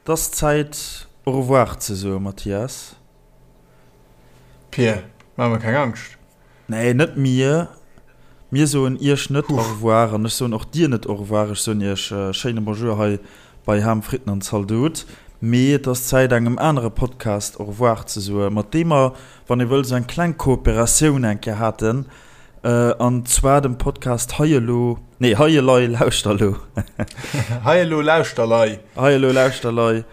Et ass Zäit au revoir ze soen, Mathias. Pir, maach mer keng Angscht. Nee, net mir. Mir soen iech net au revoir an ech soen och dir net au revoir. Ech soen iech schéine Bonjour hei bei Ham, Fritten an Zaldot. Mee et ass Zäit engem anere Podcast au revoir ze soen, mat deem mer, wann ee wëll, esou eng kleng Kooperatioun eng Kéier haten. An zwar dem Podcast Hei elo, nee Hei elei lauschter elo. Hei elo lauschter lei. Hei elo lauschter lei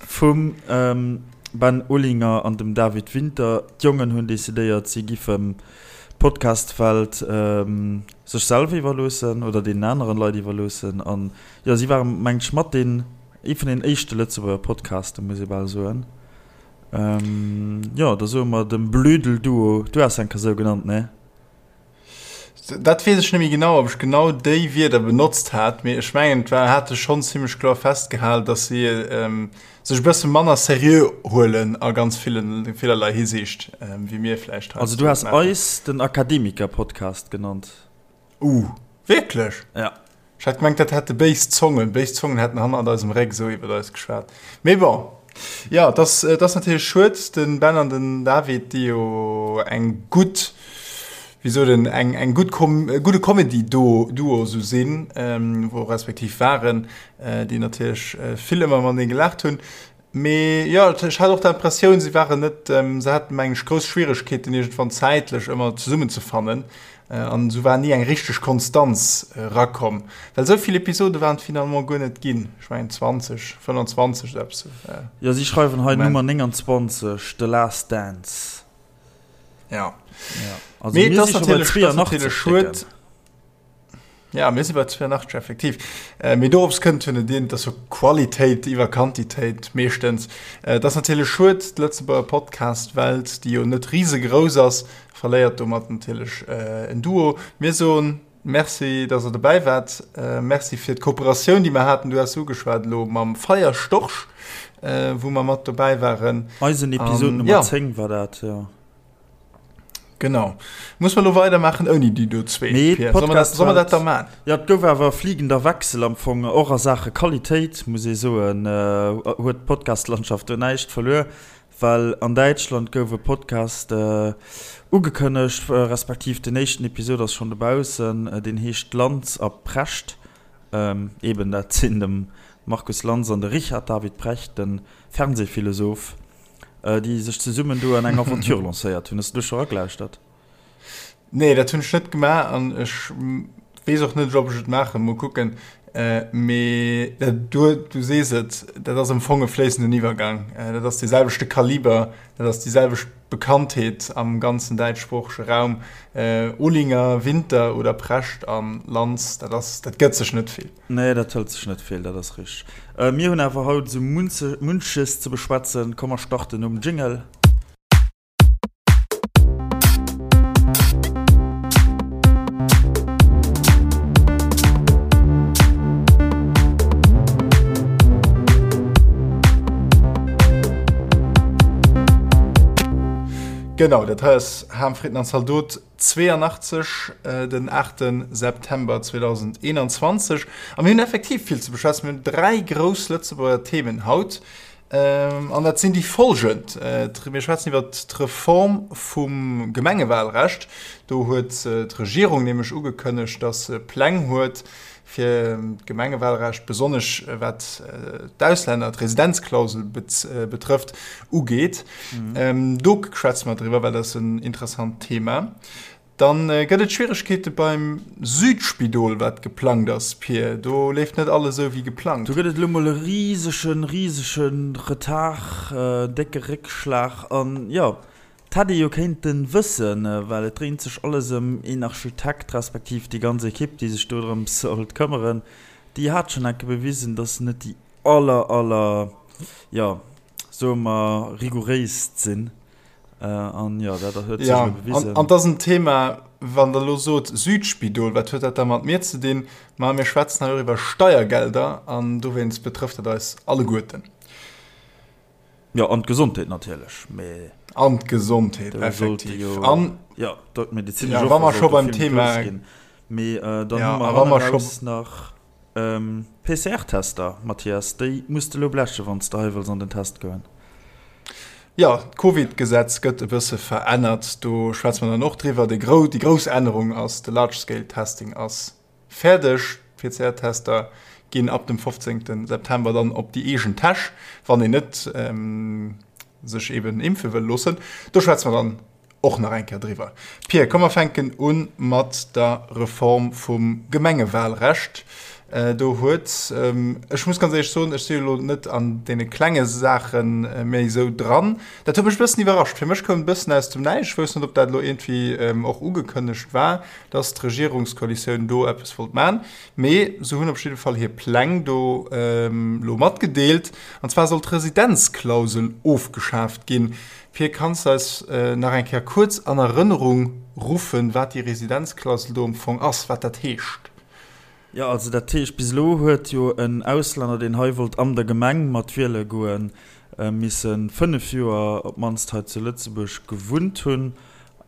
vum Ben Olinger an dem David Winter. D'Jongen hunn decidéiert, si giffen d'Podcast-Welt sech selwer iwwerloossen oder deenen aneren Leit iwwerloossen. An jo, si waren, mengen ech, mat deen, ee vun den éischte Lëtzebuerger Podcasten, muss ee bal soen. Jo, da soe mer dem Blödel-Duo, du has enker sou genannt, ne? Dat weess ech net méi genau, ob ech genau déi Wierder benotzt hat, mee ech mengen, et war, hate schonn zimmlech kloer festgehal, datt si sech e bësse manner seriö huelen a ganz villen, villerlei Hisiicht, wéi mir vläicht heiansdo Also du has eis den Akademiker-Podcast genannt. Uh, wierklech? Ja. Ech hat gemengt, dat hätte béis Zongen, béis Zongen hätten hannert eisem Réck esou iwwert eis geschwat. Mee bon, jo, et ass, et ass natierlech schued, de Ben an den David, déi jo eng gutt, wéi sot een, eng, eng gutt Kom, e gudde Comedy-Duo, Duo esou sinn, wou respektiv waren, déi natierlech vill ëmmer matenee gelaacht hunn. Mee jo, ech hat och d'Impressioun, si waren net, se haten, meng ech, grouss Schwieregkeeten, iergendwann zäitlech ëmmer zesummenzefannen. An esou war ni eng richteg Konstanz erakomm. Well esou vill Episode waren et finalement guer net ginn. Ech mengen 20, 25 oder eppes esou. Jo, si schreiwen hei Nummer 29, The Last Dance. Ja. Also mir si scho bei 82 Stécken. Ja, mir si bei 82 effektiv. Äh, mee dorops kënnt jo net een, dass jo Qualitéit iwwer Quantitéit meeschtens. Äh, dat ass natierlech schued, d'Lëtzebuerger Podcast-Welt, déi jo net risegrouss ass, verléiert domat natierlech äh, en Duo. Mir soen Merci, dass der dobäi waart. Äh, merci fir d'Kooperatioun, déi mer haten. Du has se ugeschwat elo mam Feierstorch, äh, wou mer mat dobäi waren. Eisen Episod Nummer ja. 10 war dat, ja. Genau. Muss mer lo weidermaachen ouni déi do zwee? Nee, Pierre? Soll mer dat, soll mer dat da maan? Ja, et gouf awer e fliegender Wechsel am Fong, och a Saache Qualitéit, muss ee soen, huet d'Podcast-Landschaft do näischt verluer, well an Däitschland gouf e Podcast ugekënnegt, respektiv den éischten Episod ass schonn dobaussen, deen heescht Lanz a Precht. Eben, dat sinn de Markus Lanz an de Richard David Precht, de Fernsehphilosoph. Déi sech zesummen do an eng Aventure lancéiert hunn. Hues du do scho eragelauschtert? Nee, dat hunn ech net gemaach an ech weess och net, ob ech et maachen. Mol kucken. Mee du, du sees et, dat ass am Fong e fléissenden Iwwergang. Dat ass dee selwechte Kaliber, dat ass déi selwecht Bekanntheet am ganzen däitschsproochege Raum. Olinger, Winter oder Precht a Lanz, dat ass, dat gëtt sech net vill. Nee, dat hëlt sech net vill, dat ass richteg. Mir hunn awer haut esou munches ze beschwätzen. Komm mer starten nom Jingle. Genau, dat hei ass Ham, Fritten an Zaldot. 82, den 8 September 2021. A mir hunn effektiv vill ze beschwätzen. Mir hunn dräi grouss Lëtzebuerger Themen haut. An dat sinn déi folgend, Mir schwätzen iwwer d'Reform vum Gemengewalrecht. Do huet d'Regierung nämlech ugekënnegt, datt se Pläng huet, fir d'Gemengewalrecht, besonnesch wat d'Auslänner, d'Residenzklausel betrëfft, ugeet. Do schwätze mer driwwer, well dat ass en interessant Thema. Dann gëtt et Schwieregkeete beim Südspidol, wat geplangt ass, Pir. Do leeft net alles esou wéi geplangt. Do gëtt et elo mol e risegen, risege Retard, décke Réckschlag. An jo, 't hätt ee jo kéinten wëssen, well et dréint sech alles ëm een Architekt, respektiv déi ganz Ekipp, déi sech dodrëms sollt këmmeren. Déi hat schonn enke bewisen, dass se net déi aller, aller, jo, soe mer, rigouréist sinn. An jo, dat huet sech elo bewisen. Jo, an 't ass en Thema, wann Der elo sot Südspidol, wat huet dat da mat mir ze dinn? Ma mir schwätzen hei och iwwer Steiergelder an dowéinst betrëfft dat eis alleguerten. Jo, an d'Gesondheet natierlech, mee. An d'Gesondheet, effektiv. An, jo, d'medezinesch Offer sollt do vill méi grouss ginn. Mee dann hu mer hanneraus nach. PCR-Tester, Mathias, déi muss de elo blechen, wann s de hei wëlls an den Test goen. Jo, d'Covid-Gesetz gëtt e bësse verännert. Do schwätze mer dann och driwwer. Déi grouss Ännerung ass, de Large-Scale-Testing ass fäerdeg. D'PCR-Tester ginn ab dem 15 September dann op déi eegen Täsch, wann een net sech eben impfe wëll loossen. Do schwätze mer dann och nach eng Kéier driwwer. Pir, komm mer fänken u mat der Reform vum Gemengewalrecht. Do huet, ech muss ganz éierlech soen, ech si jo elo net an deene klenge Saache méi esou dran, dat huet mech e bëssen iwwerrascht. Fir mech koum et e bëssen aus dem Näischt. Ech wousst net, ob dat elo iergendwéi och ugekënnegt war, dass d'Regierungskoalitioun do eppes wollt maachen. Mee se hunn op jidde Fall hir Pläng do elo matgedeelt. An zwar soll d'Residenzklausel ofgeschaaft ginn. Pir, kanns de eis nach eng Kéier kuerz an Erënnerung ruffen, wat déi Residenzklausel do am Fong ass, wat dat heescht? Jo, also dat heescht, bis elo huet jo en Auslänner, deen hei wollt an der Gemeng mat wiele goen, misse 5 Joer op d'mannst hei zu Lëtzebuerg gewunnt hunn.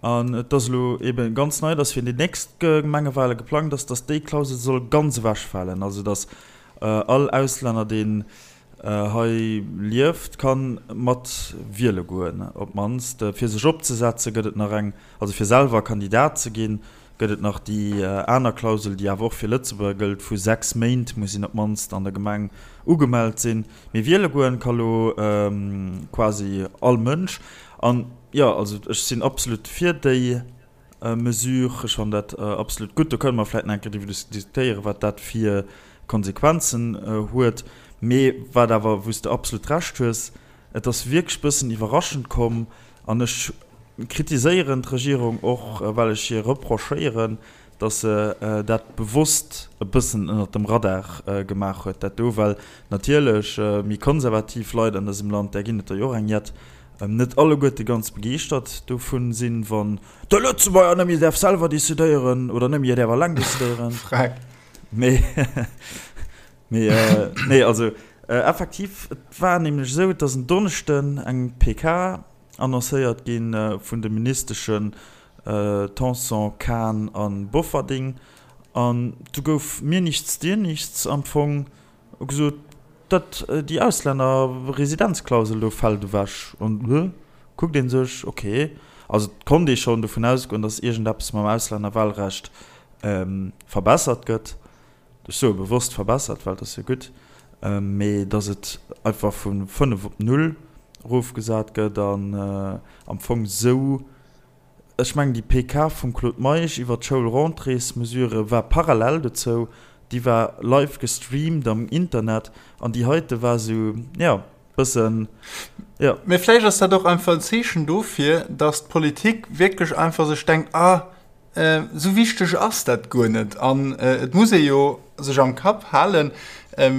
An et ass elo eebe ganz nei, dass fir déi nächst Gemengewale geplangt ass, dass déi Klausel soll ganz ewechfalen, also dass all Auslänner, deen hei lieft, ka mat wiele goen. Op d'mannst fir sech opzesetze gëtt et nach eng, also fir selwer Kandidat ze ginn, gëtt et nach déi aner Klausel, déi awer och fir Lëtzebuerger gëllt, vu 6 Méint muss een op d'mannst an der Gemeng ugemellt sinn. Mee wiele goen ka lo quasi all Mënsch. An jo, also ech sinn absolut fir déi Mesure. Ech fannen dat absolut gutt. Do kënne mer vläicht nach eng Kéier driwwer diskutéieren, wat dat fir Konsequenzen huet. Mee wat awer, wou s de absolut Recht hues, et ass wierklech e bëssen iwwerraschend komm. An ech kritiséieren d'Regierung och, well ech hir reprochéieren, datt se dat bewosst e bëssen ënnert dem Radar gemaach huet, dat do, well natierlech méi konservativ Leit an dësem Land, där ginn et der jo och eng jett, net alleguerte ganz begeeschtert dovun sinn, wann de Lëtzebuerger net méi däerf selwer decidéieren oder net méi däerf alleng decidéieren. Freck. Mee, mee, nee, also effektiv, et war nämlech esou, et ass en Donneschden eng PK annoncéiert gi vun de Ministeschen Tanson, Kahn a Bofferding an du gouf mir nichts, dir nichts am Fong gesot, dat déi Auslännerresidenzklausel do fält ewech. An hë kuckt ee sech, ok, also et konnt ee schonn dovun ausgoen, datt iergendeppes mam Auslännerwahlrecht verbessert gëtt. Ech soe bewosst verbessert, well et ass jo gutt, mee datt et einfach vu 5 op 0 erofgesat gëtt an am Fong esou, ech mengen déi PK vum Claude Meisch iwwert d'Schoulrentréesmesure war parallel dozou, déi war live gestreamt am Internet an déi heite war esou, jo, bëssen, jo. Mee vläicht ass dat och einfach en Zeechen dofir, datt d'Politik wierklech einfach sech denkt, ah, Esou wichteg ass dat guer net. An et muss ee jo sech am Kapp halen,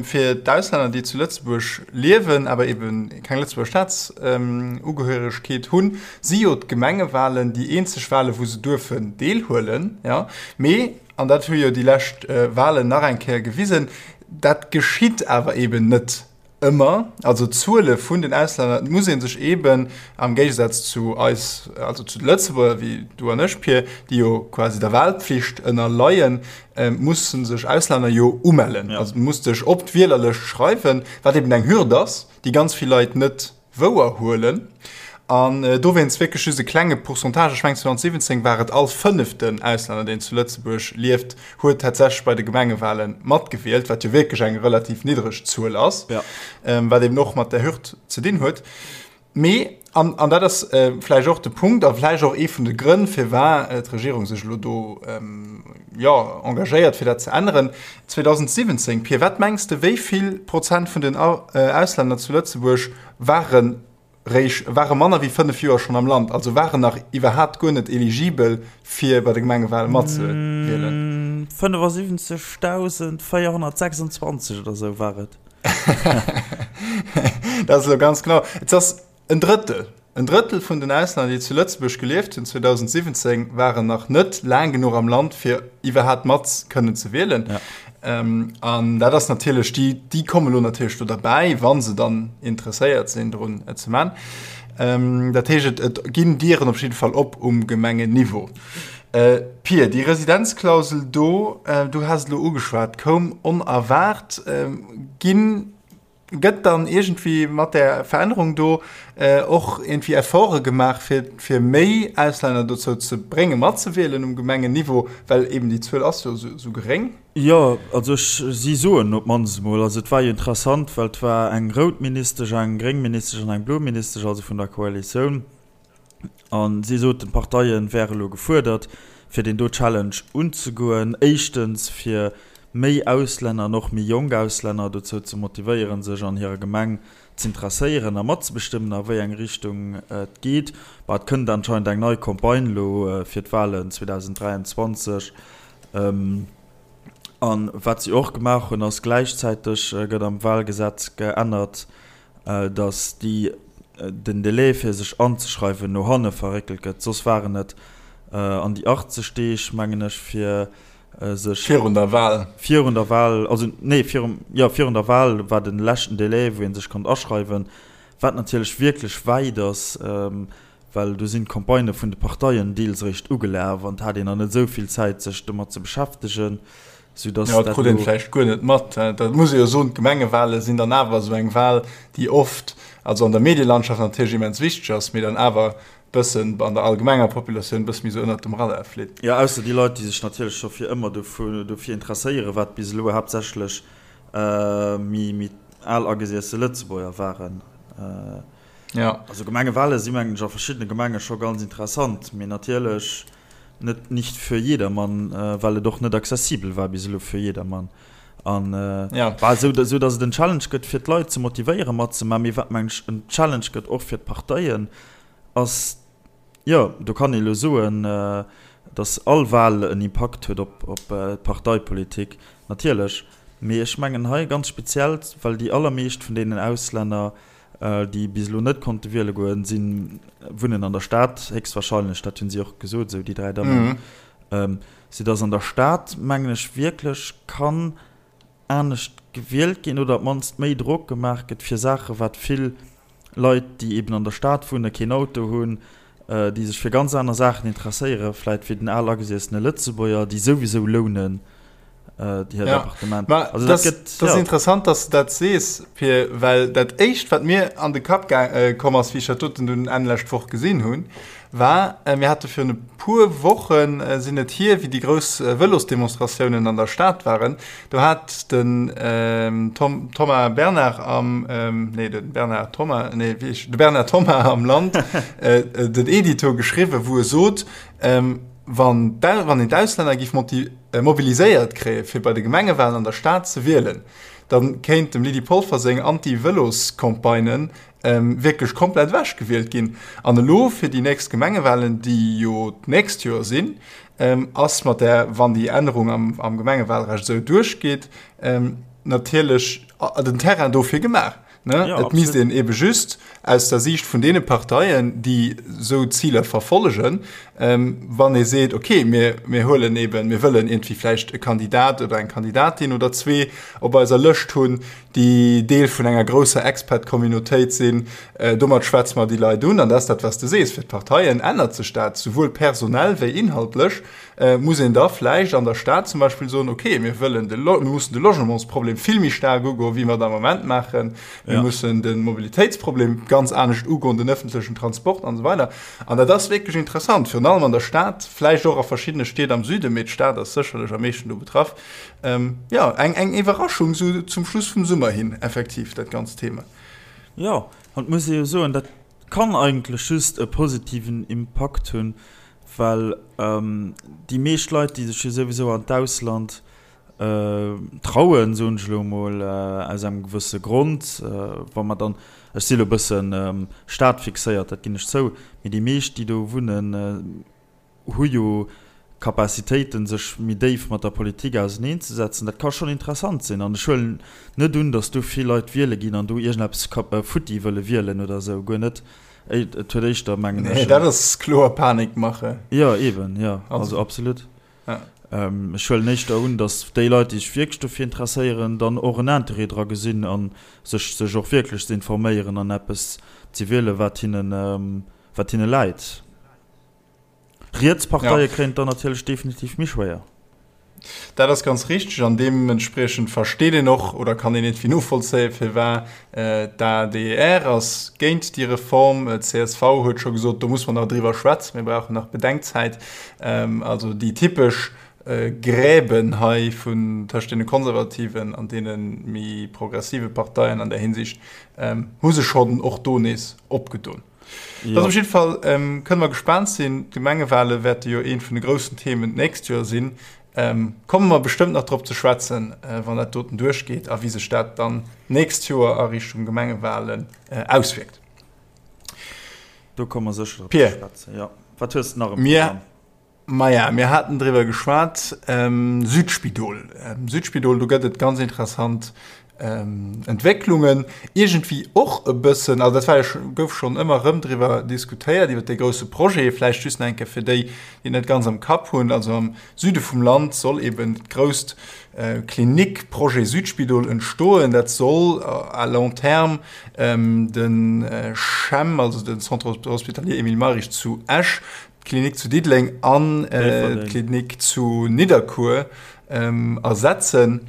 fir d'Auslänner, déi zu Lëtzebuerg liewen, awer ebe keng Lëtzebuerger Staatsugehöregkeet hunn, si jo d'Gemengewalen déi eenzeg Walen, wou se duerfen deelhuelen. Mee, an dat hu jo déi lescht Walen nach eng Kéier gewisen, dat geschitt awer eben net. Ëmmer, also d'Zuele vun den Auslänner, et muss ee sech eeben am Géigesaz zu eis, also zu de Lëtzebuerger wéi du an ech, Pir, déi jo quasi der Wahlpflicht ënnerleien, musse sech Auslänner jo umellen. Also du muss dech op d'Wielerlëscht schreiwen, wat eeben eng Hürd ass, déi ganz vill Leit net wouer huelen an dowéinst wierklech just e klenge Pourcentage, ech mengen 2017 war et all fënneften Auslänner, deen zu Lëtzebuerg lieft, huet tatsächlech bei de Gemengewale matgewielt, wat jo wierklech eng relativ niddreg Zuel ass, wat eben och mat där Hürd ze dinn huet. Mee, an, an dat ass vläicht och de Punkt a vläicht och ee vun de Grënn, firwat d'Regierung sech elo do, jo, engagéiert, fir dat ze änneren, 2017, Pir, wat mengs de, wéi vill Prozent vun den Auslänner zu Lëtzebuerg ware réischt, ware manner wéi 5 Joer schonn am Land, also waren nach iwwerhaapt guer net eligibel, fir bei de Gemengewale matzewielen? 75.426 oder esou war et. Dat ass elo ganz genau. Et ass En Drëttel, en Drëttel vun den Auslänner, déi zu Lëtzebuerg gelieft hunn 2017, waren nach net laang genuch am Land, fir iwwerhaapt mat kënnen ze wielen. Ja. Ähm, an dat ass natierlech, déi, déi komme lo natierlech do derbäi, wa se dann interesséiert sinn, drun et ze man. Ähm, dat heescht, et, et ginn Dieren op jidde Fall op um Gemengenniveau. Pir, déi Residenzklausel do, du has et elo ugeschwat, koum onerwaart. Ginn, gëtt dann iergendwéi mat där Verännerung do och iergendwéi Efforte gemaach, fir, fir méi Auslänner dozou ze bréngen, matzewielen um Gemengenniveau, well eeben déi Zuel ass jo esou geréng? Jo, also ech, si soen op d'mannst emol, also et war jo interessant, well et war eng rout Ministesch, eng gréng Ministesch an eng blo Ministesch, also vun der Koalitioun, A si soten, d'Parteie wäre elo gefuerdert, fir deen do Challenge unzegoen. Éischtens, fir méi Auslänner an och méi jonk Auslänner dozou ze motivéieren, sech an hirer Gemeng z'interesséieren a matzebestëmmen, a wéi eng Richtung et geet. Bah, et kënnt anscheinend eng nei Campagne elo fir d'Walen 2023. A wat si och gemaach hunn, ass, gläichzäiteg gëtt am Walgesetz geännert, datt déi den Delai fir sech anzeschreiwen no hanne verréckelt gëtt. Soss waren et an déi 80 Deeg, mengen ech, fir sech. Virun der Wahl. Virun der Wahl, also nee, virum, jo, virun der Wahl war de leschten Delai, wou ee sech konnt aschreiwen, wat natierlech wierklech wäit ass. Well do sinn d'Campagnë vun de Parteien deels eréischt ugelaf an et hat een nach net esou vill Zäit, sech domat ze beschäftegen, soudass dat elo. Jo, et krut een vläicht guer net mat. Dat muss ee jo soen, d'Gemengewale sinn dann awer esou eng Wal, déi oft, also an der Medielandschaft natierlech immens wichteg ass, mee dann awer bëssen an der allgemenger Populatioun e bësse méi esou ënnert dem Radar flitt. Jo, ausser déi Leit, déi sech natierlech scho fir ëmmer dofir interesséieren, wat bis elo haaptsächlech méi al agesiesse Lëtzebuerger waren. Ja. Also Gemengewale si mengen ech a verschiddene Gemenge scho ganz interessant, mee natierlech net nicht für jedermann, well et och net accessibel war bis elo fir jedermann. An ja. war esou, esou datt et en Challenge gëtt fir d'Leit ze motivéieren matzemaachen, mee wat mengen ech en Challenge gëtt och fir d'Parteien ass, Jo, do kann ee lo soen, datt all Wal en Impakt huet op d'Parteipolitik, natierlech. Mee ech mengen hei ganz speziell, well déi allermeescht vun deenen Auslänner, déi bis elo net konnte wiele goen, si wunnen an der Stad, héchstwahrscheinlech, dat hunn si och gesot, esou déi 3 Dammen, soudatt an der Stad, mengen ech, wierklech kann anescht gewielt ginn oder op d'mannst méi Drock gemaach gëtt fir Saache wat vill Leit, déi eben an der Stad wunnen, keen Auto hunn, déi sech fir ganz aner Saachen interesséiere vläit wéi den al agesiessene Lëtzebuerger, déi souwisou lounen hiert ja. Appartement. Ma also dat, dat gëtt, das ja. interessant, dass du dat sees, Pir, well dat éischt, wat mir an de Kapp komm ass, wéi ech dat doten dunn Enn lescht Woch gesinn hunn, war, mir hate virun e puer Wochen, sinn et hier, wéi déi grouss Vëlosdemonstratiounen an der Stad waren, do hat den Tom, Thomas Bernard am, nee, de Bernard Thomas, nee, wéi heescht, de Bernard Thomas am Land den Edito geschriwwen, wou e sot, wann wann een d'Auslänner géif mobiliséiert kréie fir bei de Gemengewalen an der Stad ze wielen, da kéint dem Lydie Polfer seng Anti-Vëlos-Campagnen wierklech komplett ewechgewielt ginn. An elo fir déi nächst Gemengewalen, déi jo d'nächst Joer sinn, ass mat där, wann déi Ännerung am Gemengewalrecht esou duerchgeet, natierlech den Terrain dofir gemaach. Et misst een eebe just aus der Siicht vun deene Parteien, déi esou Ziler verfollegen, wann ee seet, okay, mir huelen eeben, mir wëllen iergendwéi vläicht e Kandidat oder eng Kandidatin oder zwee op eiser Lëscht hunn, déi Deel vun enger grousser Expat-Communautéit sinn. Domat schwätze mer déi Leit un. An dat ass dat, wat s de sees, fir d'Parteien ännert sech dat, souwuel personell wéi inhaltlech. Muss een da vläicht an der Stad zum Beispill soen, okay, mir wëllen de, mir mussen de Logementsproblem vill méi staark ugoen, wéi mer et am Moment maachen. Mir mussen de Mobilitéitsproblem ganz anescht ugoen, den ëffentlechen Transport an esou weider. An dat ass wierklech interessant, virun allem an der Stad, vläicht och a verschiddene Stied am Süden, mee d'Stad ass sécherlech am meeschten do betraff. Ähm, jo, eng, eng Iwwerraschung sou zum Schluss vum Summer hin, effektiv, dat ganzt Thema. Jo, an et muss ee jo soen, dat kann eigentlech just e positiven Impakt hunn, well déi meescht Leit, déi sech jo souwisou an d'Ausland trauen, soen ech elo emol, aus engem gewësse Grond, wa mer dann, ech si elo e bëssen stadfixéiert, dat ginn ech zou, mee déi meescht, déi do wunnen, hu jo Capacitéiten, sech méi déif mat der Politik auseneenzesetzen. Dat ka schonn interessant sinn. An ech huelen net un, datt do vill Leit wiele ginn an do iergendeppes futti wëlle wielen oder esou. Guer net. Et huet éischter, mengen ech. Nee, dat ass kloer Panikmache. Jo, eeben, jo. Also absolut. Ech huelen éischter un, datt déi Leit, déi sech wierklech dofir interesséieren, dann och en Interêt dra gesinn a sech sech och wierklech ze informéieren an eppes ze wielen, wat hinnen, wat hinne läit. D'riets Parteie kréien et dann natierlech definitiv méi schwéier. Dat ass ganz richteg an deementspriechend versteet een och oder kann een iergendwéi novollzéien, firwat d'ADR ass géint déi Reform. D'CSV huet scho gesot, do muss mer nach driwwer schwätzen, mir brauchen nach Bedenkzäit. Also déi typesch Gräben hei vun tëscht deene konservativen an deene méi progressive Parteien an där Hinsicht hu sech schonn och do nees opgedon. Ja. Op jidde Fall ähm, kënne mer gespaant sinn. D'Gemengewale wäerte jo eent vun de groussen Themen d'nächst Joer sinn. Ähm, komme mer bestëmmt nach drop ze schwätzen, äh, wann dat doten duerchgeet a wéi sech dat dann d'nächst Joer a Richtung Gemengewalen äh, auswierkt. Do komme mer sécher drop ze schwätzen. Ja. Wat hues de nach am Programm? Maja, mir haten driwwer geschwat, Südspidol. Südspidol, do gëtt et ganz interessant Entwécklungen. Iergendwéi och e bëssen, also dat war jo, gouf schonn ëmmer erëm driwwer diskutéiert, iwwer dee grousse Projet. Vläicht just nach eng Kéier fir déi, déi et net ganz am Kapp hunn, Also am Süde vum Land soll eben dat grousst Klinikprojet Südspidol entstoen. Dat soll à long terme de CHEM, also de Centre hospitalier Emile Mayrisch zu Esch, d'Klinik zu Diddeleng an d'Klinik zu Nidderkuer ersetzen,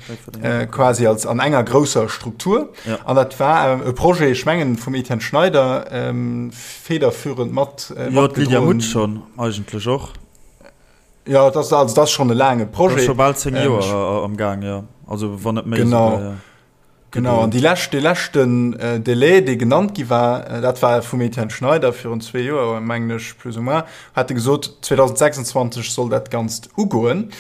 quasi als an enger grousser Struktur. An dat war e Projet, ech mengen, vum Etienne Schneider federführend mat. Jo, d'Lydia Mutsch schonn eigentlech och. Jo, dat ass, also dat ass schonn e laange Projet. Dat ass scho bal 10 Joer am Gaang, jo. Also wann net méi esouguer, jo. Genau, an déi lescht, dee leschten Délai, dee genannt gi war, dat war vum Etienne Schneider virun zwee Joer, mengen ech, plus ou moins, hat e gesot, 2026 soll dat Ganzt ugoen.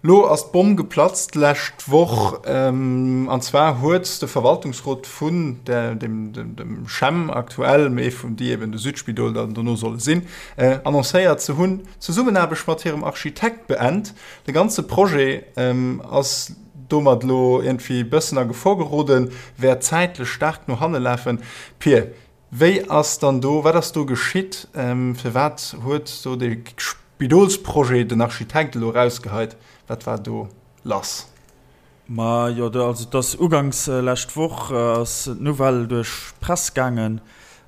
Lo ass d'Bomm geplatzt d'lescht Woch, an zwar huet de Verwaltungsrot vun der, dem, dem, dem CHEM aktuell, mee vun déi eben de Südspidol dann dono solle sinn, annoncéiert, se hunn d'Zesummenaarbecht mat hirem Architekt beent. De ganze Projet ass domat elo iergendwéi bëssen a Gefor geroden, wäert zäitlech staark no hanne lafen. Pir, wéi ass dann do, wat ass do geschitt? Firwat huet do dee Spidolsprojet den Architekt elo erausgeheit? Wat war do lass? Ma jo, also et ass uganks lescht Woch ass d'Nouvelle duerch d'Press gaangen,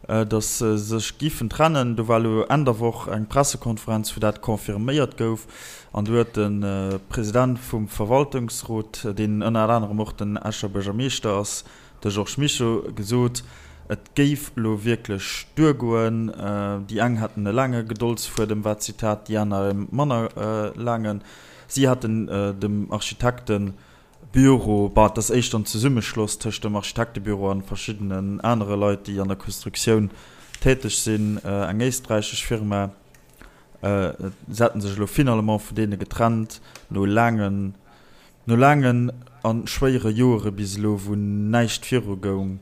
datt se sech giffen trennen. Do war elo Enn der Woch eng Pressekonferenz, wou dat confirméiert gouf. An do huet de President vum Verwaltungsrot, deen ënner anerem och den Escher Buergermeeschter ass, de Georges Mischo, gesot, et géif elo wierklech duergoen. Déi eng hätten e laange Gedoldsfuedem, war d'Zitat, déi aner e manner laangen. Si hätten dem Architekten Büro, bah, et ass éischter en Zesummeschloss tëscht dem Architektebüro an verschiddenen anere Leit, déi an der Konstruktioun täteg sinn, eng éisträichesch Firma. Se hätte sech elo finalement vun deene getrennt, no laangen, no laangen a schwéiere Joere bis elo, wou näischt virugoung.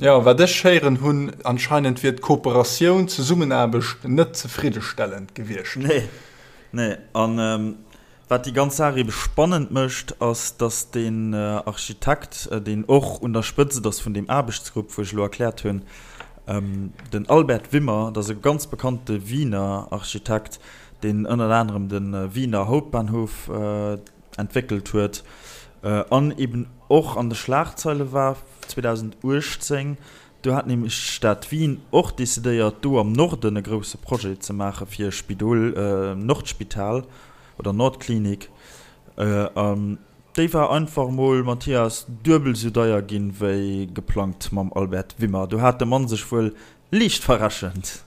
Jo, wat ech héieren hunn, anscheinend wier d'Kooperatioun, d'Zesummenaarbecht net zefriddestellend gewiescht. Nee, nee. An Wat déi ganz Saach ebe spannend mécht, ass, datt deen Architekt, deen och un der Spëtzt ass vun deem Aarbechtsgrupp, wou ech elo erkläert hunn, den Albert Wimmer, dat ass e ganz bekannte Wiener Architekt, deen ënnert anerem de Wiener Hauptbahnhof entwéckelt huet an eben och an de Schlagzeile war 2018. Do hat nämlech d'Stad Wien och decidéiert, do am Norden e grousse Projet ze maache fir e Spidol, Nordspital oder Nordklinik. An déi war einfach emol, Mathias, duebel esou deier ginn, wéi geplangt mam Albert Wimmer. Do hat de Mann sech wuel liicht verrechent.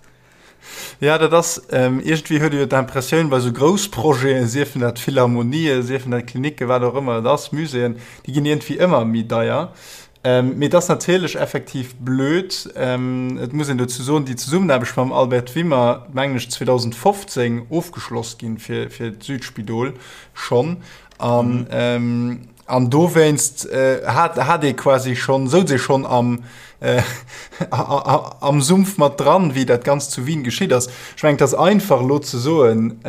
Ja, dat ass, iergendwéi huet ee jo d'Impressioun, bei esou grouss Projeten, siefen dat Philharmonien, siefen dat Klinicken, wat och ëmmer et ass, Muséeën, déi ginn iergendwéi ëmmer méi deier. Mee et ass natierlech effektiv blöd. Et muss een dozou soen, déi Zesummenaarbecht mam Albert Wimmer, mengen ech, 2015 ofgeschloss ginn fir, fir d'Südspidol schonn. An, an dowéinst hat, hat ee quasi schonn, souz ee schonn am, am Sumpf mat dran, wéi dat Ganzt zu Wien geschitt ass. Ech mengen, et ass einfach elo ze soen,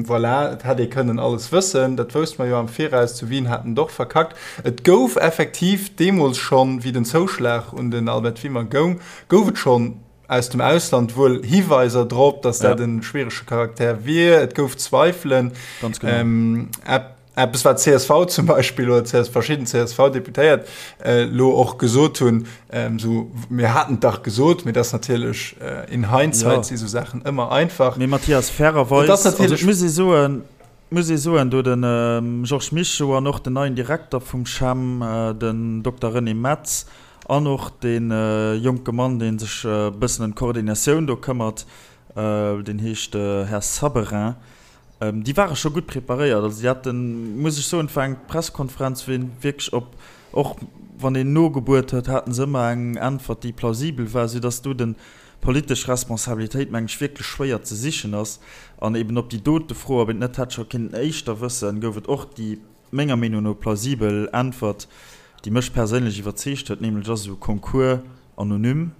voilà, et hätt ee kënnen alles wëssen, dat wousste mer jo am Viraus, zu Wien hat en et och verkackt. Et gouf effektiv deemools schonn, wéi den Zouschlag un den Albert Wimmer goung, gouf et schonn aus dem Ausland wuel Hiweiser drop, datt dat e schwierege Charakter wier. Et gouf Zweifelen. Ganz genau. Eppes wat csv zum Beispill oder CS verschidden CSV-Deputéiert elo och gesot hunn, esou mir haten et dach gesot, mee dat ass natierlech in hindsight si sou Saachen ëmmer einfach. Mee Mathias, fairerweis, also et muss ee soen, muss ee soen, do de Georges Mischo an och den neien Direkter vum CHEM, den Dokter René Metz an och dee jonke Mann, dee sech e bëssen ëm d'Koordinatioun do këmmert, deen heescht Här Saberin, Déi ware scho gutt preparéiert. Also déi haten, muss ech soen, et war eng Pressekonferenz, wou een wierklech op, och wann een nogebuert huet, haten se ëmmer eng Äntwert, déi plausibel war, soudass do den politesch Responsabilitéit, meng ech, wierklech schwéier ze sichen ass. An eben op déi dote Fro, ob een et net hätt scho kéinten éischter wëssen, gouf et och déi, menger Meenung no, plausibel Äntwert, déi mech perséinlech iwwerzeegt huet, nämlech ass esou e Concours anonym.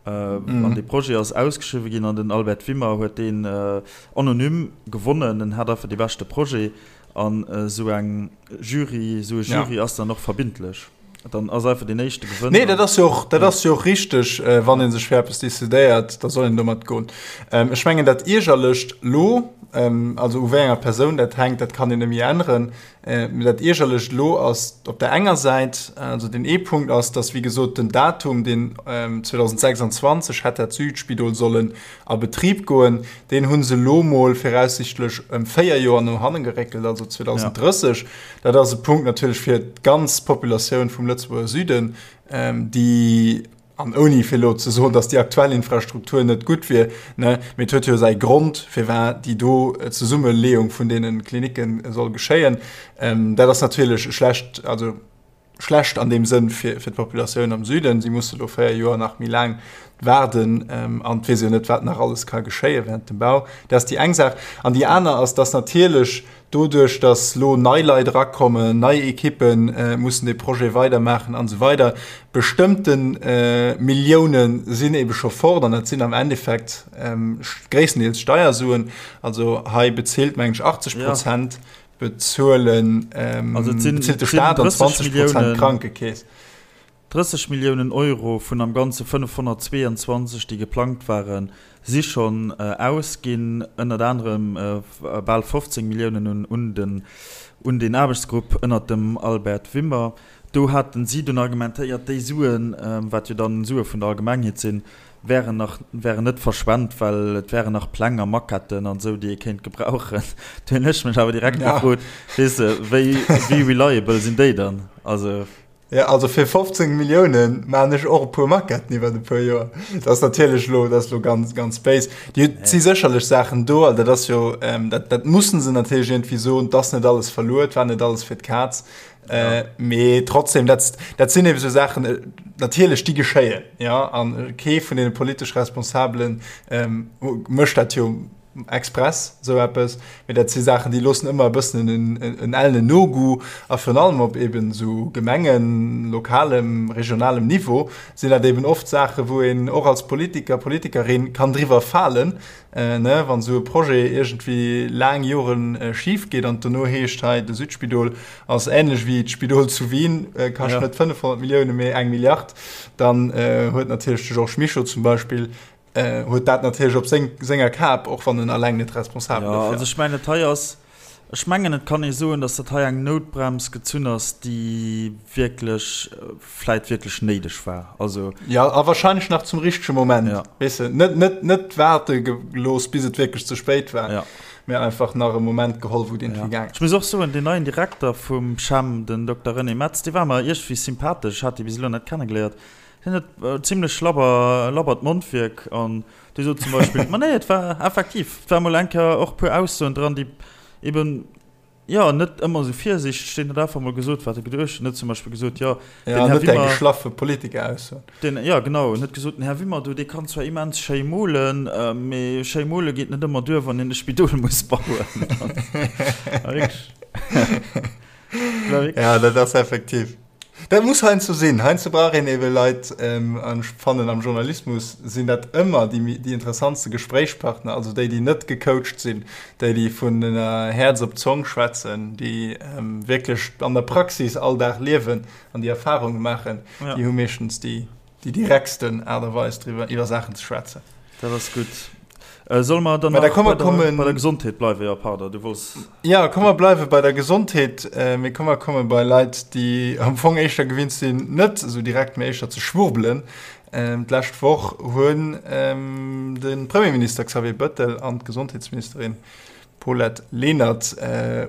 An dee Projet ass ausgeschriwwe ginn an den Albert Wimmer huet deen anonym gewonnen. En hat einfach dee beschte Projet an esou eng Jury, esou e Jury ass dann och verbindlech. Dann ass einfach deen éischte gewënnt. Nee, dat ass jo och, dat ass jo och richteg, wann ee sech fir eppes decidéiert, da soll een domat goen. Ech mengen dat Iergerlecht lo, also u wéi enger Persoun dat hänkt, dat kann een net méi änneren, Mee dat Iergerlecht elo ass op der enger Säit, also deen ee Punkt ass, dass wéi gesot den Datum, deen 2026 hätt dat Südspidol sollen a Betrib goen, deen hu se elo mol viraussichtlech ëm 4 Joer no hanne geréckelt, also 2030. Dat ass e Punkt natierlech fir d'ganz Populatioun vum Lëtzebuerger Süden, déi, An ouni fir elo ze soen, datt déi aktuell Infrastruktur net gutt wier, ne, mee et huet jo säi Grond, firwat déi do Zesummeleeung vun deene Klinicke soll geschéien. Dat ass natierlech schlecht, also schlecht an deem Sënn fir, fir d'Populatioun am Süden. Si musse lo 4 Joer nach méi laang waarden an et weess een jo net, wat nach alles ka geschéie während dem Bau. Dat ass déi eng Saach. An déi aner ass, datt natierlech Doduerch, dass lo nei Leit erakommen, nei Ekippe mussen dee Projet weidermaachen an esou weider, bestëmmte Millioune sinn ebe scho fort an dat sinn am Endeffekt gréisstendeels Steiersuen. Also hei bezilt, mengen ech, 80 Prozent bezuelen, bezilt de Staat an 20 Prozent d'Krankekeess. 30 Milliounen Euro vun am Ganze 522, déi geplangt waren, si schonn ausginn. Ënnert anerem bal 15 Milliounen un den un deen Aarbechtsgrupp ënnert dem Albert Wimmer. Do haten si dunn argumentéiert, déi Suen, wat jo dann Sue vun der Allgemengheet sinn, wären nach wären net verschwent, well et wären nach Pläng a Maquetten an esou, déi ee kéint gebrauchen. Do hunn ech mech awer direkt gefrot, weess de, wéi wéi reliable sinn déi dann? Also. Ja, also fir 15 Milliounen maan ech och e puer Maquetten iwwer e puer Joer. Dat ass natierlech lo, dat ass lo ganz, ganz béis. Déi si sécherlech Saachen do, also dat ass jo, ähm, dat, dat mussen se natierlech iergendwéi soen, 't ass net alles verluer, et war net alles fir d'Kaz. Äh, mee trotzdem, dat, dat sinn ebe sou Saachen, äh, natierlech, déi geschéien, ja, an kee vun deene politesch Responsabelen, ähm, mécht dat jo express esou eppes, mee dat si Saachen, déi loossen ëmmer e bëssen en, en ellenen Nogoût a virun allem op eben esou Gemengen-, lokalem, regionalem Niveau sinn dat eben oft Saachen, wou een och als Politiker, Politikerin kann driwwer falen, ne, wann esou e Projet iergendwéi laang Joren schif geet an et dono heescht, hei de Südspidol ass änlech wéi d'Spidol zu Wien, kascht net 500 Milliounen, mee eng Milliard, dann huet natierlech de Georges Mischo zum Beispill huet dat natierlech op seng, senger Kap, och wann en alleng net responsabel dofir ass. Jo, also ech mengen, dat hei ass, ech mengen, et kann ee soen, datt dat hei eng Noutbrems gezunn ass, déi wierklech, vläit wierklech néideg war. Also. Jo, a wahrscheinlech nach zum richtege Moment, ja. Weess de, net, net, net waarde gelooss, bis et wierklech ze spéit war, ja. Mee einfach nach e Moment geholl, wou et iergendwéi gaang ass. Ech muss och soen, deen neien Direkter vum CHEM, den Dokter René Metz, dee war mer iergendwéi sympathesch. Ech hat dee bis elo net kennegeléiert. Hien huet zimlech labber, labbert Mondwierk an dee sot zum Beispill, ma nee, et war effektiv, et war mol eng Kéier och e puer Aussoen dran, déi eben, jo, net ëmmer esou virsiichteg sinn, huet einfach mol gesot, wat e geduecht huet. En huet zum Beispill gesot, jo, den Här Wimmer. Geschlaffe Politiker-Aussoen. Den, jo, genau, en huet gesot, den Här Wimmer do, dee kann zwar immens schéi molen, mee schéi mole geet net ëmmer duer, wann een e Spidol muss bauen. Ja, dat ass effektiv. Dat muss heiansdo sinn. Heiansdo brauch een ebe Leit, an ech fannen am Journalismus sinn dat ëmmer déi, déi interessantste Gespréichspartner, also déi, déi net gecoacht sinn, déi, déi vun Häerz op d'Zong schwätzen, déi wierklech an der Praxis all Dag liewen an déi Erfarunge maachen, déi hu meeschtens déi, déi direktsten Aart a Weis driwwer, iwwer Saachen ze schwätzen. Dat ass gutt. Solle mer dann nach bei der, bei der Gesondheet bleiwen? Jo, pardon, du wollts. Jo, komm mer bleiwe bei der Gesondheet, mee komm mer komme bei Leit, déi am Fong éischter gewinnt sinn, net esou direkt, mee éischter ze schwurbelen. D'lescht Woch hunn de Premierminister Xavier Bëttel an d'Gesondheetsministerin Paulette Lenert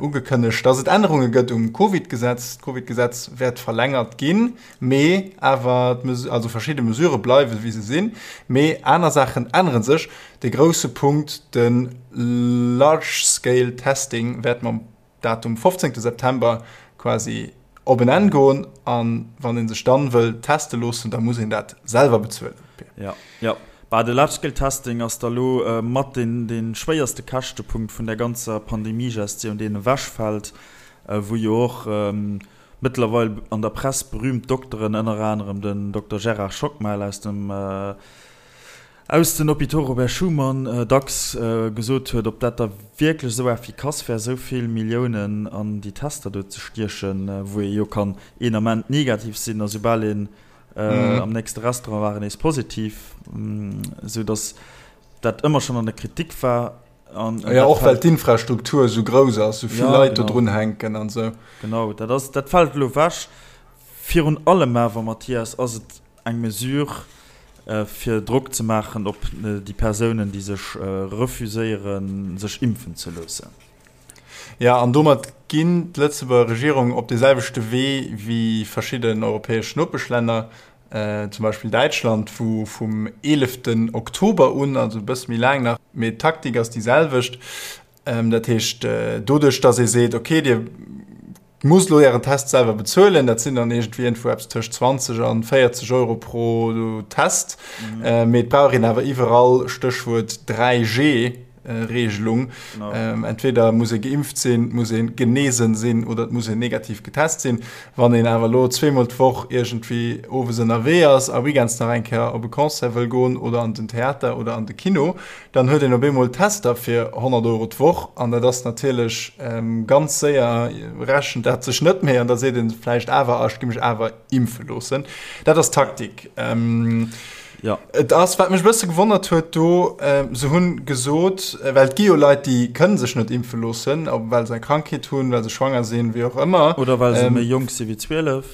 ugekënnegt, datt et Ännerunge gëtt um Covid-Gesetz. D'Covid-Gesetz wäert verlängert ginn, mee awer also verschidde Mesurë bleiwe wéi se sinn, mee aner Saachen ännere sech. De grousse Punkt, de Large Scale Testing wäert mam Datum 15 September quasi op en Enn goen an wann ee sech dann wëll teste loossen, da muss een dat selwer bezuelen. Jo, jo. Bah, de Large Scale Testing ass da lo mat deen, dee schwéierste Käschtepunkt vun der ganzer Pandemiegestioun, deen ewechfält, wou jo och mëttlerweil an der Press berühmt Dokteren, ënner anerem den Dokter Gérard Schockmel aus dem, aus den Hôpitaux Robert Schuman dacks gesot huet, ob dat da wierklech esou effikass wär, esou vill Milliounen an déi Tester do ze stiechen, wou ee jo kann een Ament negativ sinn a soubal een am nächste Restaurant war, nees positiv, esou datt dat ëmmer schonn an der Kritik war. An ja, och well d'Infrastruktur esou grouss ass, esou vill Leit do drun hänken an esou. Genau, dat ass, dat fält elo ewech. Virun allem awer, Mathias, ass et Eng Mesure, fir Drock ze maachen op déi Persounen, déi sech refuséieren, sech impfen ze loossen. Jo, an domat ginn d'Lëtzebuerger Regierung op dee selwechte Wee wéi verschidden europäesch Nopeschlänner, zum Beispill Däitschland, wou vum 11 Oktober un, also e bësse méi laang nach, mee d'Taktik ass déi selwecht, Dat heescht, doduerch, datt ee seet, okay, Dir musst elo Ären Test selwer bezuelen, dat sinn dann iergendwéi iergendwou eppes tëscht 20 an 40 Euro pro Test, mee et brauch een awer iwwerall, Stéchwuert 3G-Regelung, entweder muss ee geimpft sinn, et muss ee genesen sinn oder et muss een negativ getest sinn. Wann een awer elo zweemol d'Woch iergendwéi owes ënnerwee ass a weekends nach eng Kéier op e Concert wëll goen oder an den Theater oder an de Kino, Dann huet een op eemol Tester fir 100 Euro d'Woch an dat ass natierlech ganz séier rechent dat sech net méi an da seet een vläicht awer, ah ech gi mech awer impfe loossen. Dat ass d'Taktik. Jo. Et ass, wat mech e bësse gewonnert huet do, se hunn gesot, well et gi jo Leit, déi kënne sech net impfe loossen, ob well se eng Krankheet hunn, well se schwanger sinn, wéi och ëmmer. Oder well se méi jonk si wéi 12.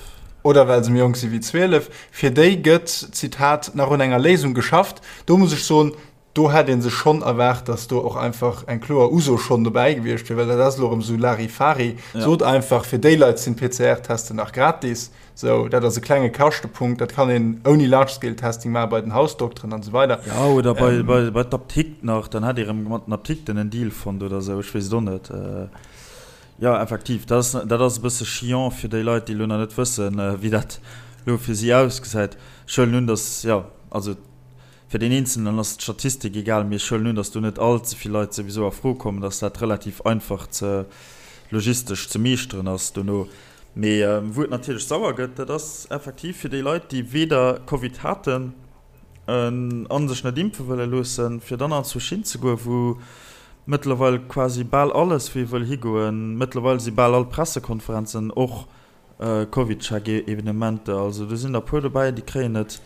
Oder well se méi jonk si wéi 12. Fir déi gëtt, Zitat, nach un enger Léisung geschafft. Do muss ech soen, do hätt ee sech schonn erwaart, datt do och einfach eng kloer Uso schonn dobäi gewiescht wier, well dat ass elo erëm esou Larifari. Sot einfach, fir déi Leit sinn d'PCR-Testen nach gratis. Sou, dat ass e klenge Kaschtepunkt, dat kann een ouni Large-Scale-Testing maache bei den Hausdokteren an esou weider. Jo, oder bei, bei, bei d'Aptikt nach, dann hätt ee erëm mat den Aptikten en Deal fonnt oder esou, ech weess et och net. Jo, effektiv, dat ass, dat ass e bësse chiant fir déi Leit, déi elo nach net wëssen, wéi dat elo fir si ausgesäit. Ech huelen un, datt, jo, also fir deen Eenzelnen ass d'Statistik egal, mee ech huelen un, datt do net all ze vill Leit souwisou a Fro kommen, datt dat relativ einfach ze logistesch ze meeschteren ass dono. Mee wou et natierlech sauer gëtt, dat ass effektiv fir déi Leit, déi weder Covid haten a sech net impfe wëlle loossen, fir dann anzwousch hinzegoen, wou mëttlerweil quasi bal alles, wou ee wëll higoen. Mëttlerweil si bal all Pressekonferenzen och Covidcheck-Evenementer. Also do sinn der e puer dobäi, déi kréien et,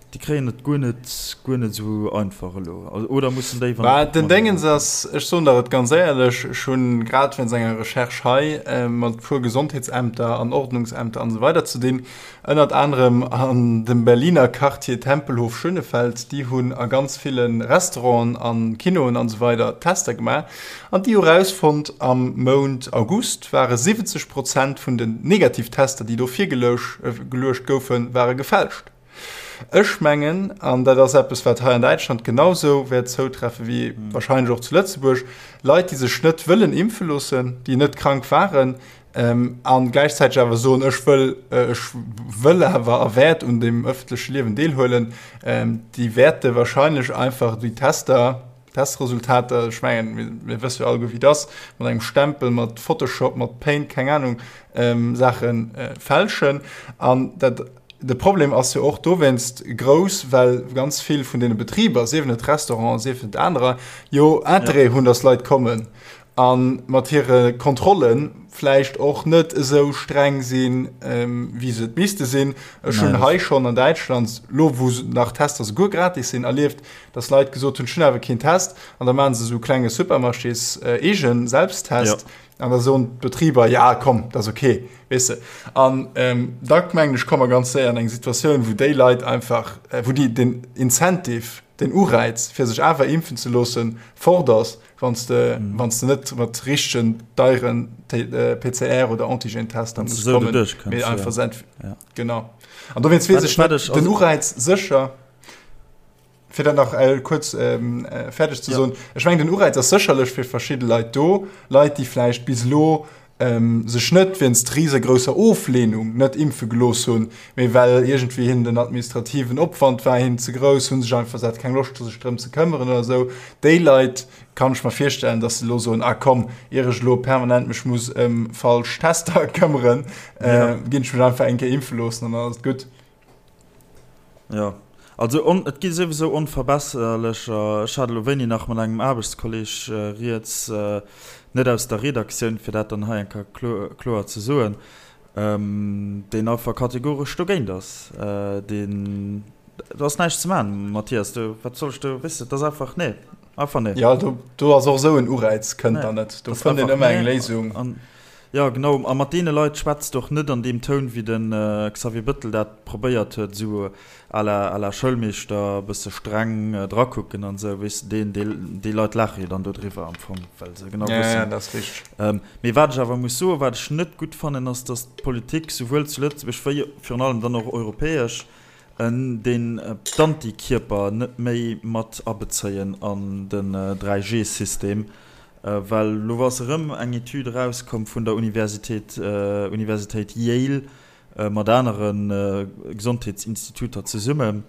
déi kréien et guer net, guer net esou einfach elo. Oder mussen déi, wann. Bah, den Déngens ass, ech soen der et ganz éierlech, ech hunn grad wéinst enger Recherche hei mat e puer Gesondheetsämter an Ordnungsämter an esou weider ze dinn, Ënnert anerem an dem Berliner Quartier Tempelhof-Schönefeld, déi hunn a ganz ville Restauranten an Kinoen an esou weider Tester gemaach an déi hu rausfonnt, am Mount August ware 70 Prozent vun den negativ Tester, déi do virgeluecht goufen, ware gefälscht. Ech mengen, an dat ass eppes, wat hei an Däitschland genau sou wäert zoutreffe wéi wahrscheinlech och zu Lëtzebuerg, Leit, déi sech net wëllen impfe loossen, déi net krank waren, An gläichzäiteg awer soen, ech wëll, ech wëll awer a wäert un dem ëffentleche Liewen deelhuelen, déi wäerte wahrscheinlech einfach déi Tester, Testresultater, ech mengen, mir, mir wësse jo alleguer, wéi et ass, mat engem Stempel, mat Photoshop, mat Paint, keng Anung, Saache fälschen. An dat, de Problem ass jo och dowéinst grouss, well ganz vill vun deene Betriber, siewen et Restauranten, siewen et anerer, jo Interêt hunn, datt Leit kommen. A mat hire Kontrolle vläicht och net esou streng sinn, wéi se et misste sinn. Ech hunn hei schonn an Däitschland, elo wou nach Tester souguer gratis sinn, erlieft, datt Leit gesot hunn, ech hunn awer keen Test. An da maache se esou klenge Supermarchés-eege Selbsttest. An da soen d'Betriber, ja komm, dat ass ok, weess de. An da mengen ech, komme mer ganz séier an eng Situatioun, wou déi Leit einfach, wou déi den Incentive, den Ureiz, fir sech awer impfen ze loossen, fort ass, wann s de, wann s de net mat richtegen deieren PCR oder Antigen-Tester muss kommen, mee einfach sent. Genau. An dowéinst weess ech net, den Ureiz sécher, fir dat nach kuerz fäerdeg ze soen, ech mengen den Ureiz ass sécherlech fir verschidde Leit do, Leit déi vläicht bis elo sech net wéinst risegrousser Oflehnung net impfe gelooss hunn, mee well iergendwéi hinnen den administrativen Opwand war hinnen ze grouss, hu sech einfach sat keng Loscht sech drëm ze këmmeren oder esou. Déi Leit kann ech mer virstellen, datt se elo soen, ah komm, ier ech elo permanent mech muss ëm falsch Tester këmmeren, ginn ech mech einfach eng Kéier impfe loossen an dann ass et gutt. Jo, also on, et gi souwisou onverbesserlecher. Ech hat elo wéini nach mat engem Aarbechtskolleg rieds, net aus der Redaktioun, fir dat dann hei eng Kéier kloer ze soen, deen einfach kategoresch dogéint ass. Deen, do ass näischt ze maachen, Mathias, do, wat soll ech do, weess de, et ass einfach, nee, einfach nee. Jo, do, do ass och esou en Ureiz kënnt dann net. Do fënnt een ëmmer eng Léisung. Jo, genau. A mat deene Leit schwätzt och net an deem Toun, wéi de Xavier Bëttel dat probéiert huet, esou à la, à la Schoulmeeschter, e bësse streng drakucken an esou, weess de. Deen, déi, déi Leit laache jo dann dodriwwer am Fong, well se genau wëssen. Ja, ja, dat ass richteg. Mee wat ech awer muss soen, wat ech net gutt fannen, ass, datt d'Politik, souwuel zu Lëtzebuerg wéi virun allem dann och europäesch, deen d'Antikierper net méi mat abezéien an den 3G-System. Well elo ass erëm eng Etüd erauskomm vun der Universitéit, Universitéit Yale mat anere Gesondheetsinstituter zesummen,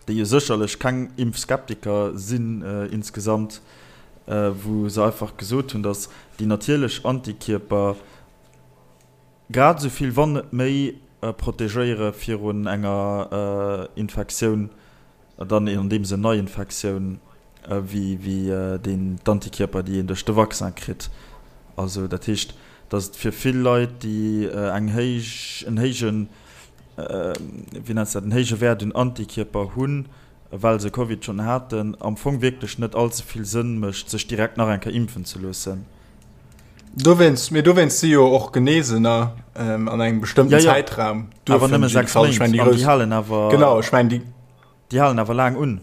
déi jo sécherlech keng Impfskeptiker sinn insgesamt, wou se einfach gesot hunn, datt déi natierlech Antikierper grad esou vill, wann net méi, protegéiere virun enger Infektioun Dann an deem Sënn Neiinfektioun wéi deen d'Antikierper, déi een duerch de Vaccin kritt. Also dat heescht, datt et fir vill Leit, déi eng héich, en héijen, wéi nenns de dat, en héije Wäert un Antikierper hunn, well se Covid schonn haten, am Fong wierklech net all ze vill Sënn mécht, sech direkt nach eng Kéier impfen ze loossen. Dowéinst, mee dowéinst si jo och Geneesener an engem bestëmmten Zäitraum. Awer nëmme 6 Méint, an déi halen awer. Genau, ech mengen déi. Déi halen awer laang un.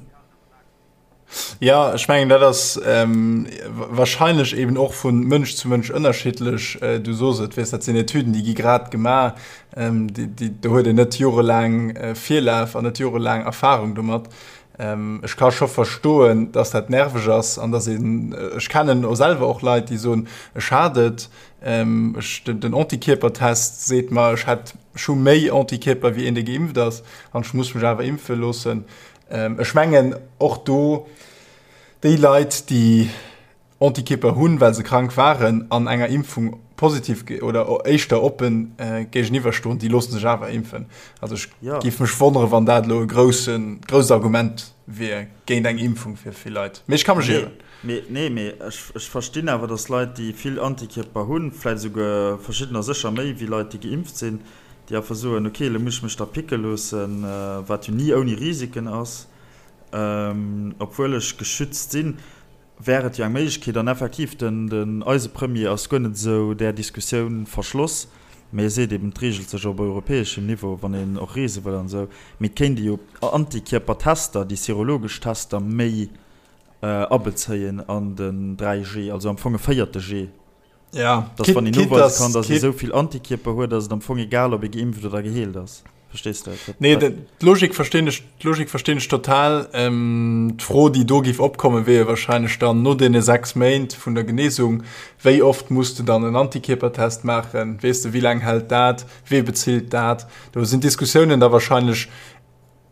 Ja, ech mengen dat ass wahrscheinlech eben och vu Mënsch zu Mënsch ënnerschiddlech. Du sos et, weess dat sinn Etüden, déi gi grad gemaach, déi, do huet een net jorelaang Virlaf an net jorelaang Erfarung domat. Ech ka scho verstoen, dass dat nerveg ass an dass een, ech kennen och selwer och Leit, déi soen, ech hat et, ech, den Antikierpertest seet mer, ech hätt, ech hu méi Antikierper wéi een, dee geimpft ass an ech muss mech awer impfe loossen. Ech mengen och do déi Leit, déi Antikierper hunn, well se krank waren, an enger Impfung positiv oder éischter oppen géigeniwwer stoen, déi loosse sech awer impfen. Also ech géif mech wonnere wann dat elo e groussen, grousst Argument wier géint eng Impfung fir vill Leit. Mee ech ka mech ieren. Mee, nee, mee ech, ech verstinn awer, datt Leit, déi vill Antikierper hunn, vläicht esouguer verschiddener sécher méi wéi Leit, déi geimpft sinn, déi einfach soen, okay, elo muss ech mech da picke loossen, wat jo ni ouni Risiken ass, obwuel ech geschützt sinn. Wär et jo eng Méiglechkeet. An effektiv, den, eise Premier ass guer net esou där Diskussioun verschloss, mee e seet eben, et reegelt sech op europäeschem Niveau, wann een och reese wëll an esou. Mee et kéint ee jo Antikierpertester, déi serologesch Tester méi abezéien an den 3G, also am Fong e véierte G. Ja, dass wann een noweise kann, dass ee sou vill Antikierper huet, ass et am Fong egal, ob ee geimpft oder geheelt ass. Verstees de? Nee, d'Logik verstinn ech, d'Logik verstinn ech total. Ähm, d'Fro, déi do géif opkommen, wier jo wahrscheinlech dann no deene 6 Méint vun der Genesung, wéi oft muss de dann en Antikierpertest maachen? Weess de, wéi laang hält dat? Wee bezilt dat? Do sinn d'Diskussiounen da wahrscheinlech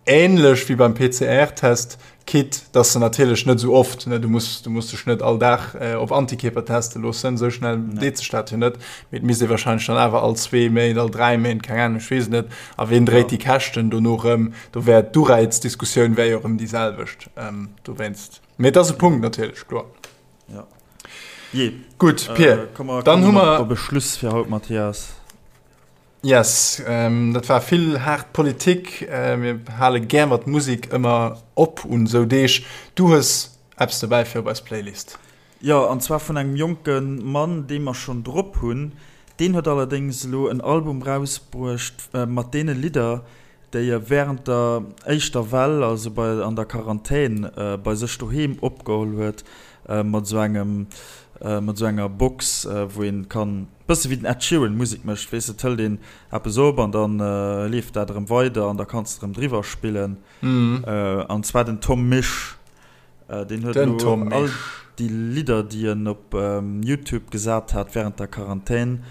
Ähnlech wéi beim PCR-Test, quitte dass se natierlech net esou oft, ne, du muss, du muss dech net all Dag op Antikierper teste loossen, esou schnell deet sech dat jo net, mee et misst ee wahrscheinlech dann awer all zwee Méint, all dräi Méint, keng Ahnung, ech weess et net. A ween dréit déi Käschten dono erëm? Do wär d'Uräizdiskussioun wär jo erëm déi selwecht dowéinst. Mee et ass e Punkt natierlech, kloer. Jo. Jee. Gutt, Pir, dann hu mer. Op e Schluss fir haut, Mathias. Yes, dat war vill haart Politik. Mir hale gär mat Musek ëmmer op un esou Deeg. Du hues eppes dobäi fir op eis Playlist. Jo, an zwar vun engem jonke Mann, dee mer schonn drop hunn. Deen huet allerdéngs elo en Album rausbruecht mat deene Lidder, déi e wärend der éischter Well, also bei an der Quarantän, bei sech doheem opgeholl huet, mat esou engem, mat esou enger Box, wou een kann, bësse wéi den Ed Sheeran Musek mécht, weess de, et hëlt een eppes op an dann leeft dat erëm weider an da kanns de erëm driwwer spillen. An zwar den Tom Misch, deen huet elo all déi Lidder, déi en op Youtube gesat hat wärend der Quarantän,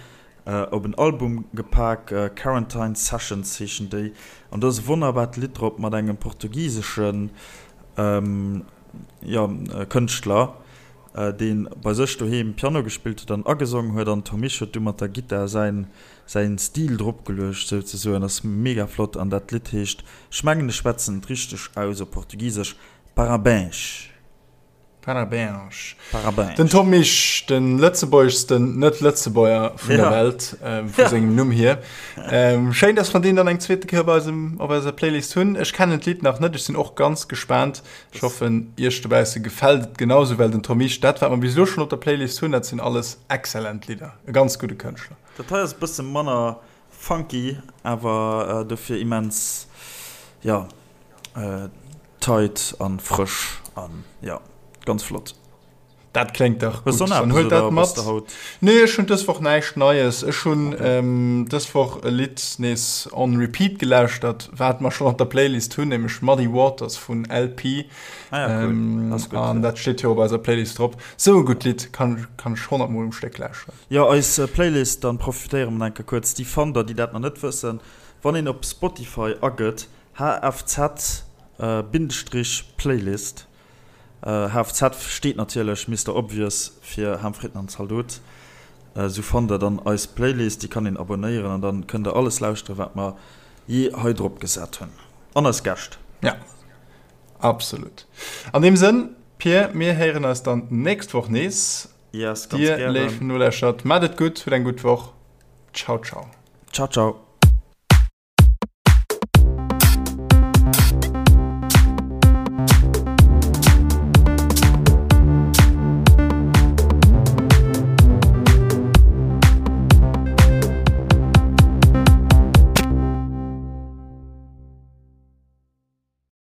Op en Album gepak, Quarantine Sessions heeschen déi, an do ass e wonnerbart Lidd drop mat engem portugiseschen, jo, Kënschtler, dee bei sech doheem Piano gespillt huet an agesongen huet, an Tom Misch huet du mat der Gittar säin säin Stil dropgeluecht souzesoen. Ass mega flott an dat Lidd heescht, ech mengen ech schwätzen et richteg aus op portugisesch, Parabéns. Parabéns. Parabéns. Den Tom Misch, de lëtzebuergeschsten Net-Lëtzebuerger vun der Welt, vu sengem Numm hier. Schéin, dass mer deen dann eng zweete Kéier op eisem, op eiser Playlist hunn. Ech kennen d'Lidd nach net, ech sinn och ganz gespaant. Ech hoffen, iech dobausse gefält et genauso, well den Tom Misch, dat wat mer bis elo schonn op der Playlist hunn, dat sinn alles exzellent Lidder. E ganz gudde Kënschtler. Dat hei ass e bësse manner funky, awer dofir immens, jo, Tight an frësch an jo, ganz flott. Dat kléngt dach gutt. Dann huelt dat mat. Nee, ech hunn dës Woch näischt Neies. Ech hunn dës Woch e Lidd nees on repeat gelauschtert, wat mer schonn op der Playlist hunn, nämlech Muddy Waters vun LP. Ah ja, cool. Ass gutt. An dat steet jo op eiser Playlist drop. Sou e gutt Lidd, kann kann ech 100 mol um Stéck lauschteren. Jo, eis Playlist, dann profitéiere mer enke kuerz. Déi fannt der, déi dat nach net wëssen, wann een op Spotify agëtt HFZ Bindestrich Playlist. HFZ steet natierlech, Mister Obvious, fir Ham Fritten an Zaldot. Sou fannt der dann eis Playlist, déi kann een abonnéieren an dann kënnt der alles lauschteren, wat mer jee hei drop gesat hunn. An eis Gäscht. Ja, absolut. An deem Sënn, Pir, mir héieren eis dann d'nächst Woch nees. Yes, ganz gären. Dir, léif Noläschert, maacht et gutt, hutt eng gutt Woch. Ciao, ciao. Ciao, ciao.